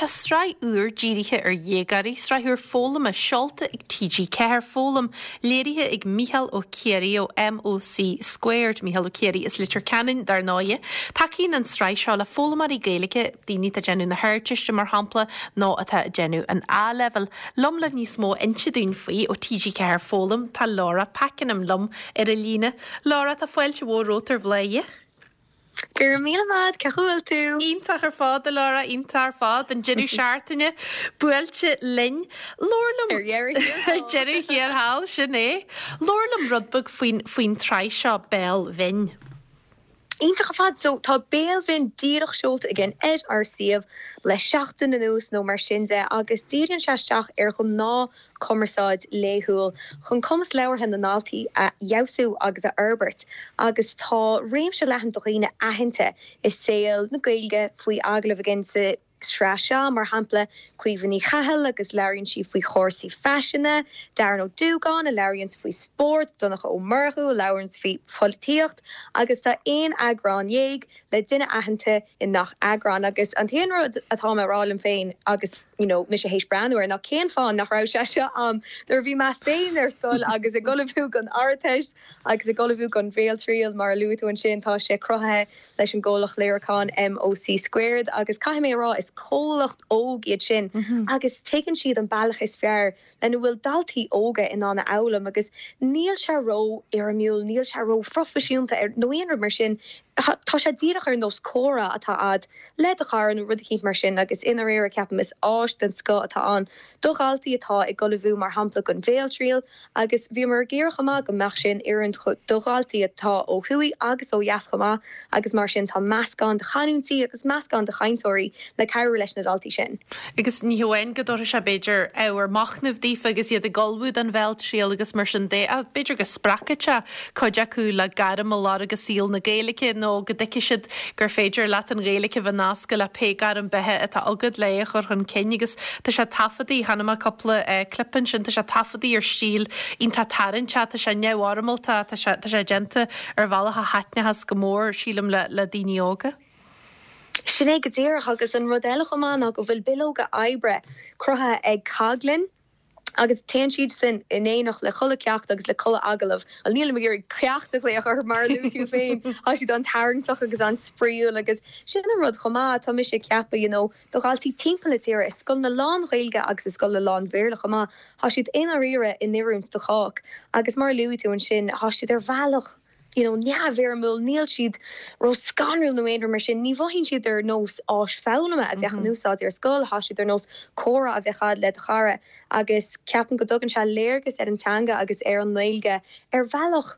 Tá sraith úr dírithe ar dhéagóirí, sraith úr foghlama seolta ag TG4 Foghlaim, léirithe ag Mícheál Ó Ciaraidh ó MOC Squared, Mícheál Ó Ciaraidh as Leitir Ceanainn, dar ndóighe. Tacaíonn an tsraith seo le foghlaimeoirí Gaeilge, daoine atá ag déanamh na hArdteiste mar shampla, nó atá ag déanamh an A-Leibhéil. Liom le níos mó a inse dúinn faoi ó TG4 Foghlaim tá Laura Pakenham liom ar an líne. Laura, tá fáilte mhór romhat ar Bhladhaire. Go raibh míle maith agat, cén chaoi a bhfuil tú? Iontach ar fad, a Laura, iontach ar fad. An deireadh seachtaine buailte linn. Labhair liom. Ar dheireadh thiar thall. Ar deireadh thiar thall, sin é. Labhair liom rud beag faoin, faoin tsraith seo, Béal Bhinn. Iontach ar fad. So, tá Béal Bhinn díreach seolta againn ar ár suíomh le seachtain anuas nó mar sin de agus díríonn sé isteach ar ghnáth cumarsáid laethúil chun cumas labhartha na ndaltaí a fheabhsú agus a fhorbairt agus tá réimse leathan de dhaoine aitheanta i saol na Gaeilge faoi agallamh againn sa tsraith seo, mar shampla Caoimhe Ní Chathail agus labhraíonn sí faoi chúrsaí faisin, Darren Ó Dúgáin a labhraíonns faoi spórt, Donncha Ó Murchú a labhraíonns faoi pholaitíocht agus tá aon eagrán dhéag le duine aitheanta i ngach eagrán agus an t-aon rud atá mé a rá liom féin agus you know mise théis breathnú air ná cén fáth nach raibh sé seo a'm nuair a bhí mé féin ar scoil agus ag ullmhú don Ardteist agus ag ullmhú don Bhéaltriail mar a luaigh tú ansin tá sé cruthaithe leis an gcomhlacht léiriúcháin MOC Squared agus caithfidh mé a rá is comhlacht óg iad sin agus tuigeann siad an bealach is fearr lena bhfuil daltaí óga in ann a fhoghlaim agus níl sé ró-fhoirmiúil, níl sé ró-phroifisiúnta nó aon rud mar sin. Tá sé díreach ar nós comhrá atá a'd le do chara nó rud eicínt mar sin agus i ndáiríre ceapaim is áis den scoth atá ann do dhaltaí atá ag ullmhú mar shampla don bhéaltriail agus bhíomar ag iarraidh chomh maith go mbeadh sé in oiriúint do dhaltaí atá ó thuaidh agus ó dheas chomh maith agus mar sin tá meascán de chanúintí agus meascán de chainteoirí le cabhrú leis na daltaí sin. Agus ní hamháin go dtabharfaidh sé, b'fhéidir, ábhar machnaimh daofa agus iad ag ullmhú don bhéaltriail agus mar sin de, ach b'fhéidir go spreagfaidh sé cuid acu le gairm a lorg i saol na Gaeilge nó go dtuigfidh siad gur féidir leat an Ghaeilge a bheith nasctha le pé gairm beatha atá agat le é a chur chun cinn. Agus tá sé taifeadtaí, chonaic mé cúpla clip ansin, tá sé taifeadtaí ar stíl iontach tarraingteach, tá sé neamhfhoirmeálta, tá sé, tá sé déanta ar bhealach a thaitneochas go mór, sílim, le, le daoine óga. Sin é go díreach, agus an rud eile chomh maith ná go bhfuil bileoga oibre cruthaithe ag Coghlin agus téann siad sin in éineacht le chuile ceacht agus le chuile agallamh. Bhuel, nílim ag iarraidh ceacht a ghlaoch orthu mar a luaigh tú féin, tá siad an-tarraingteach agus an-spraíúil agus sin an rud chomh maith, tá mise ag ceapadh, you know, do dhaltaí timpeall na tíre, i scoileanna lán-Ghaeilge agus i scoileanna lán-Bhéarla chomh maith, tá siad i ndáiríre in oiriúint do chách agus mar a luaigh tú ansin, tá siad ar bhealach. you know neamhfhoirmiúil, níl siad ró-scanrúil nó aon rud mar sin, ní mhothaíonn siad ar nós áis foghlama a bheadh in úsáid ar scoil, tá siad ar nós comhrá a bheadh a'd le do chara agus ceapaim go dtugann sé léargas ar an teanga agus ar an nGaeilge ar bhealach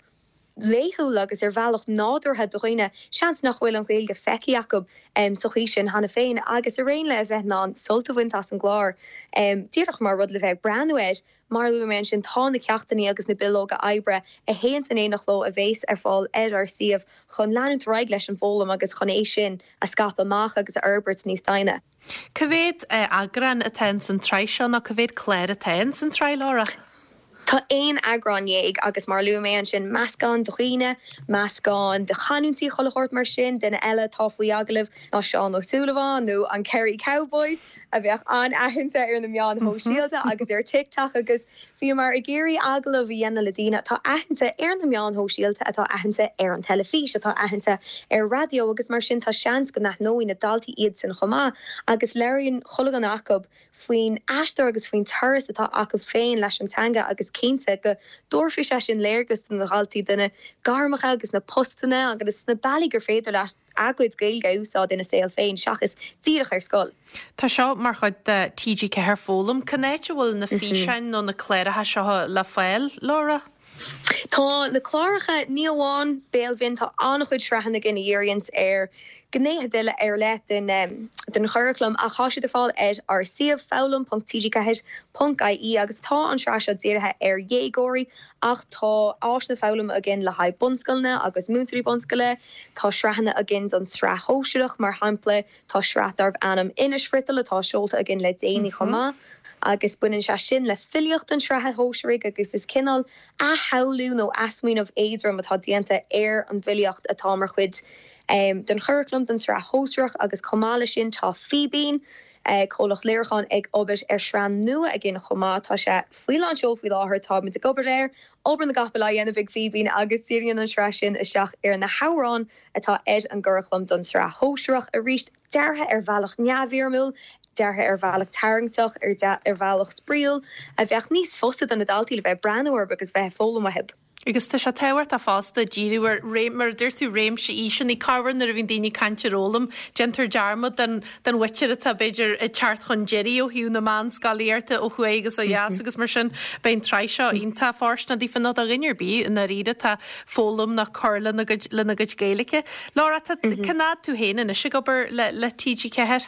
laethúil agus ar bhealach nádúrtha do dhaoine, seans nach bhfuil an Ghaeilge feicthe acu sa chaoi sin cheana féin agus araon le a bheith in ann sult a bhaint as an gclár díreach mar rud le bheith ag breathnú air. Mar a luaigh mé ansin, tá na ceachtanna agus na bileoga oibre a théanns in éineacht leo a bhéas ar fáil ar ár suíomh chun leanúint ar aghaidh leis an bhfoghlaim agus chun é sin a scaipeadh amach agus a fhorbairt níos doimhne. Cá mhéad eagrán atá ins an tsraith seo nó cá mhéad clár atá ins an tsraith, Laura? Tá aon eagrán dhéag agus mar a luaigh mé ansin, meascán de dhaoine, meascán de chanúintí chuile shórt mar sin, duine eile atá faoi agallamh ná Seán Ó Súilleabháin nó an Kerry Cowboy. a bheadh an-aitheanta ar na meáin shóisialta agus ar TikTok agus bhíomar ag iarraidh agallamh a dhéanamh le daoine atá aitheanta ar na meáin shóisialta, atá aitheanta ar an teilifís, atá aitheanta ar raidió agus mar sin tá seans go n-aithneoidh na daltaí iadsan chomh maith agus labhraíonn chuile dhuine acu faoin aistear agus faoin turas atá acu féin leis an teanga agus cinnte go dtabharfaidh sé sin léargas do na daltaí do na gairmeacha agus na postanna agus na bealaí gur féidir leat a gcuid Gaeilge a úsáid ina saol féin seachas díreach ar scoil. Tá seo mar chuid de TG4 Foghlaim. Cén áit a bhfuil na físeáin nó na cláracha seo le fáil, Laura? Tá na cláracha, ní amháin Béal Bhinn, tá an-chuid sraitheanna againn a dhíríonns ar ghnéithe ar leith den den churaclam ach tá siad ar fáil ar ár suíomh foghlaim.tg4.ie agus tá an tsraith seo dírithe ar dhéagóirí ach tá áiseanna foghlama againn le haghaidh bunscoileanna agus múinteoirí bunscoile. Tá sraitheanna againn don tsraith shóisearach, mar shampla, tá sraith darbh ainm Inis Friotal atá seolta againn le déanaí chomh maith, agus baineann sé sin le filíocht an tsraithe shóisearaigh agus is cineál athshamhlú nó athsmaoineamh éadrom atá déanta ar an bhfilíocht atá mar chuid den churaclam don tsraith shóisearach agus chomh maith leis sin tá Fíbín. Comhlacht léiriúcháin ag obair ar shraith nua againn chomh maith. Tá sé faoi lán seol faoi láthair, táimid ag obair air, obair na gcapall á dhéanamh ag Fíbín agus díríonn an tsraith sin isteach ar na hamhráin atá ar an gcuraclam don tsraith shóisearach. Arís, deartha ar bhealach neamhfhoirmiúil, deartha ar bhealach tarraingteach, ar bhealach spraíúil, a bheadh níos fusa do na daltaí le bheith ag breathnú orthu agus bheith ag foghlaim uathu. Agus tá sé tábhachtach fosta díriú ar, mar a dúirt tú, réimse aoiseanna. Corruair nuair a bhíonn daoine ag caint ar fhoghlaim, déantar dearmad den den mhuintir atá, b'fhéidir, ag teacht chun deiridh ó thaobh na meánscolaíochta ó thuaidh agus ó dheas agus mar sin. Beidh an tsraith seo iontach fóirsteanach daofa nó do dhuine ar bith i ndáiríre atá ag foghlaim nó ag cur lena gcuid lena gcuid Gaeilge. Laura, tá cén fhad tú féin anois ag obair le le TG4?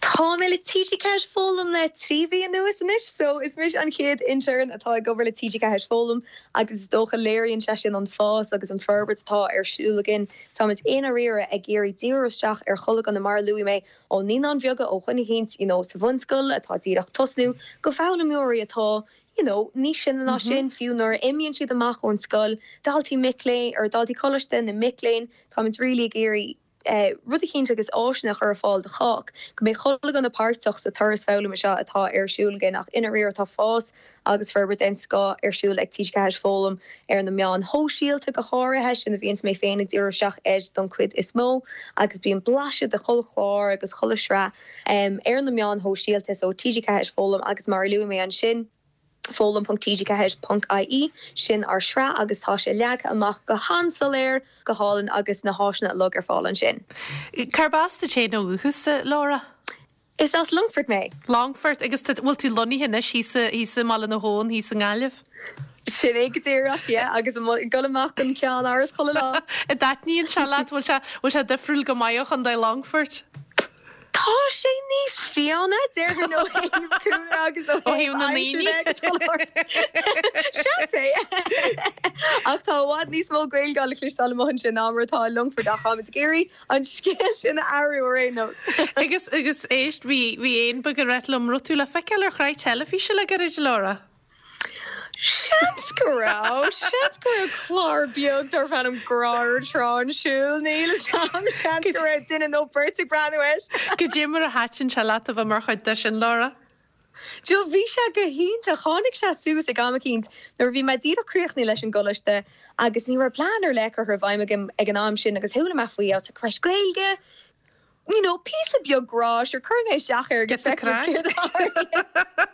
Tá mé le TG4 Foghlaim le 3 mhí anuas anois so is mise an chéad intern atá ag obair le TG4 Foghlaim agus is dócha léiríonn sé sin an fás agus an forbairt atá ar siúl againn. Táimid i ndáiríre ag iarraidh díriú isteach ar chuile dhuine mar a luaigh mé ó naíonáin bheaga ó dhuine eicínt you know sa bhunscoil atá díreach tosnú go foghlaimeoirí atá you know níos sine ná sin fiú nuair a imíonn siad amach ón scoil, daltaí mic léinn or daltaí coláiste nó mic léinn táimid really ag iarraidh rud eicínt agus áiseanna a chur ar fáil do chách, go mbeidh chuile dhuine páirteach sa turas foghlama seo atá ar siúl againn ach i ndáiríre tá fás agus forbairt den scoth ar siúl ag TG4 Foghlaim ar na meáin shóisialta go háirithe, sin a bhíonns mé féin ag díriú isteach air don chuid is mó agus bíonn blaiseadh de chuile chlár agus chuile shraith ar na meáin shóisialta so TG4 Foghlaim agus mar a luaigh mé ansin. foghlaim.tg4.ie, sin ár sraith agus tá sé leagtha amach go han-soiléir, go hálainn agus na háiseanna uilig ar fáil ansin. Cárb as duit féin ó dhúchas, a Laura? Is as Longfort mé. Longfort, agus tá, bhfuil tú lonnaithe anois thíos i, thíos i mBaile na hAbhann, thíos i nGaillimh? Sin é go díreach, yeah, agus ag dul amach don Cheannáras chuile lá. An dtaitníonn sé leat? Bhfuil sé, bhfuil sé difriúil go maith ó Chontae Longfoirt? Tá sé níos fiáine, déarfainn, ó thaobh cúlra agus ó thaobh na ndaoine. Seans é! Ach tá i bhfad níos mó Gaeilge le cloisteáil amuigh ansin ná mar atá i Longfort ach táimid ag iarraidh an scéal sin a athrú ar aon nós. Agus, agus éist, bhí, bhí éan beag ag rá liom, raibh tú le feiceáil ar shraith teilifíse le gairid, Laura? Seans go raibh. Seans go raibh clár beag darbh ainm Grá ar Trá ar siúl, níl 'fhios a'm. Seans go raibh duine nó beirt ag breathnú air. Goidé mar a thaitin sé leat a bheith mar chuid de sin, Laura? Joe, bhí sé go hiontach. Tháinig sé suas ag am eicínt nuair a bhí mé díreach críochnaithe leis an gcoláiste agus ní raibh plean ar leith curtha i bhfeidhm agam ag an am sin agus chuala mé faoi, I was like, right, Gaeilge, you know, píosa beag grá, sure, cuirfidh mé isteach air agus feicfidh muid céard a tharlaíonn.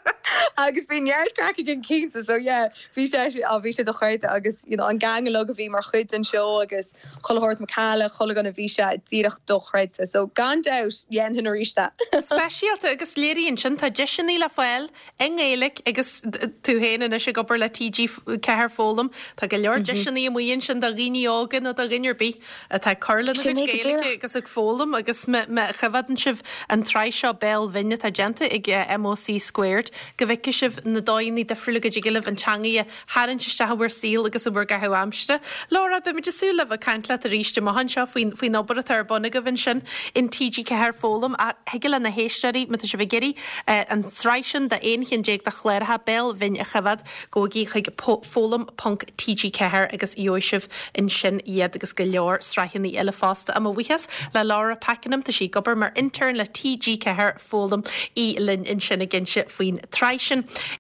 Agus bhí neart craic againn cinnte, so yeah, bhí sé, á, bhí sé dochreidte agus, you know, an gang uilig a bhí mar chuid den seó agus chuile shórt macalla, chuile dhuine, bhí sé díreach dochreidte. So gan dabht, dhéanfainn arís é. Speisialta agus léiríonn sin, tá deiseanna le fáil i nGaeilge agus tú féin anois ag obair le TG4 Foghlaim, tá go leor deiseanna amuigh ansin do dhaoine óga nó do dhuine ar bith atá ag cur lena gcuid Gaeilge agus ag foghlaim agus má choimhéadann sibh an tsraith seo Béal Bhinn atá déanta ag MOC Squared go bhfeicfidh sibh na dóigheanna difriúla go dtig libh an teangaidh a tharraingt isteach in bhur saol agus in bhur gcaitheamh aimsire. Laura, beimid ag súil le bheith ag caint leat arís amach anseo faoin faoin obair atá ar bun agaibh ansin in TG4 Foghlaim. Ach thig le na héisteoirí, má tá sibh ag iarraidh an tsraith sin de 11 cheann de chláracha Béal Bhinn a choimhéad, gabhaigí chuig foghlaim ponc TG4 agus gheobhaidh sibh ansin iad agus go leor sraitheanna eile fosta. Mo bhuíochas le Laura Pakenham, tá sí ag obair mar intern le TG4 Foghlaim, í linn ansin ag inse faoin tsraith sin.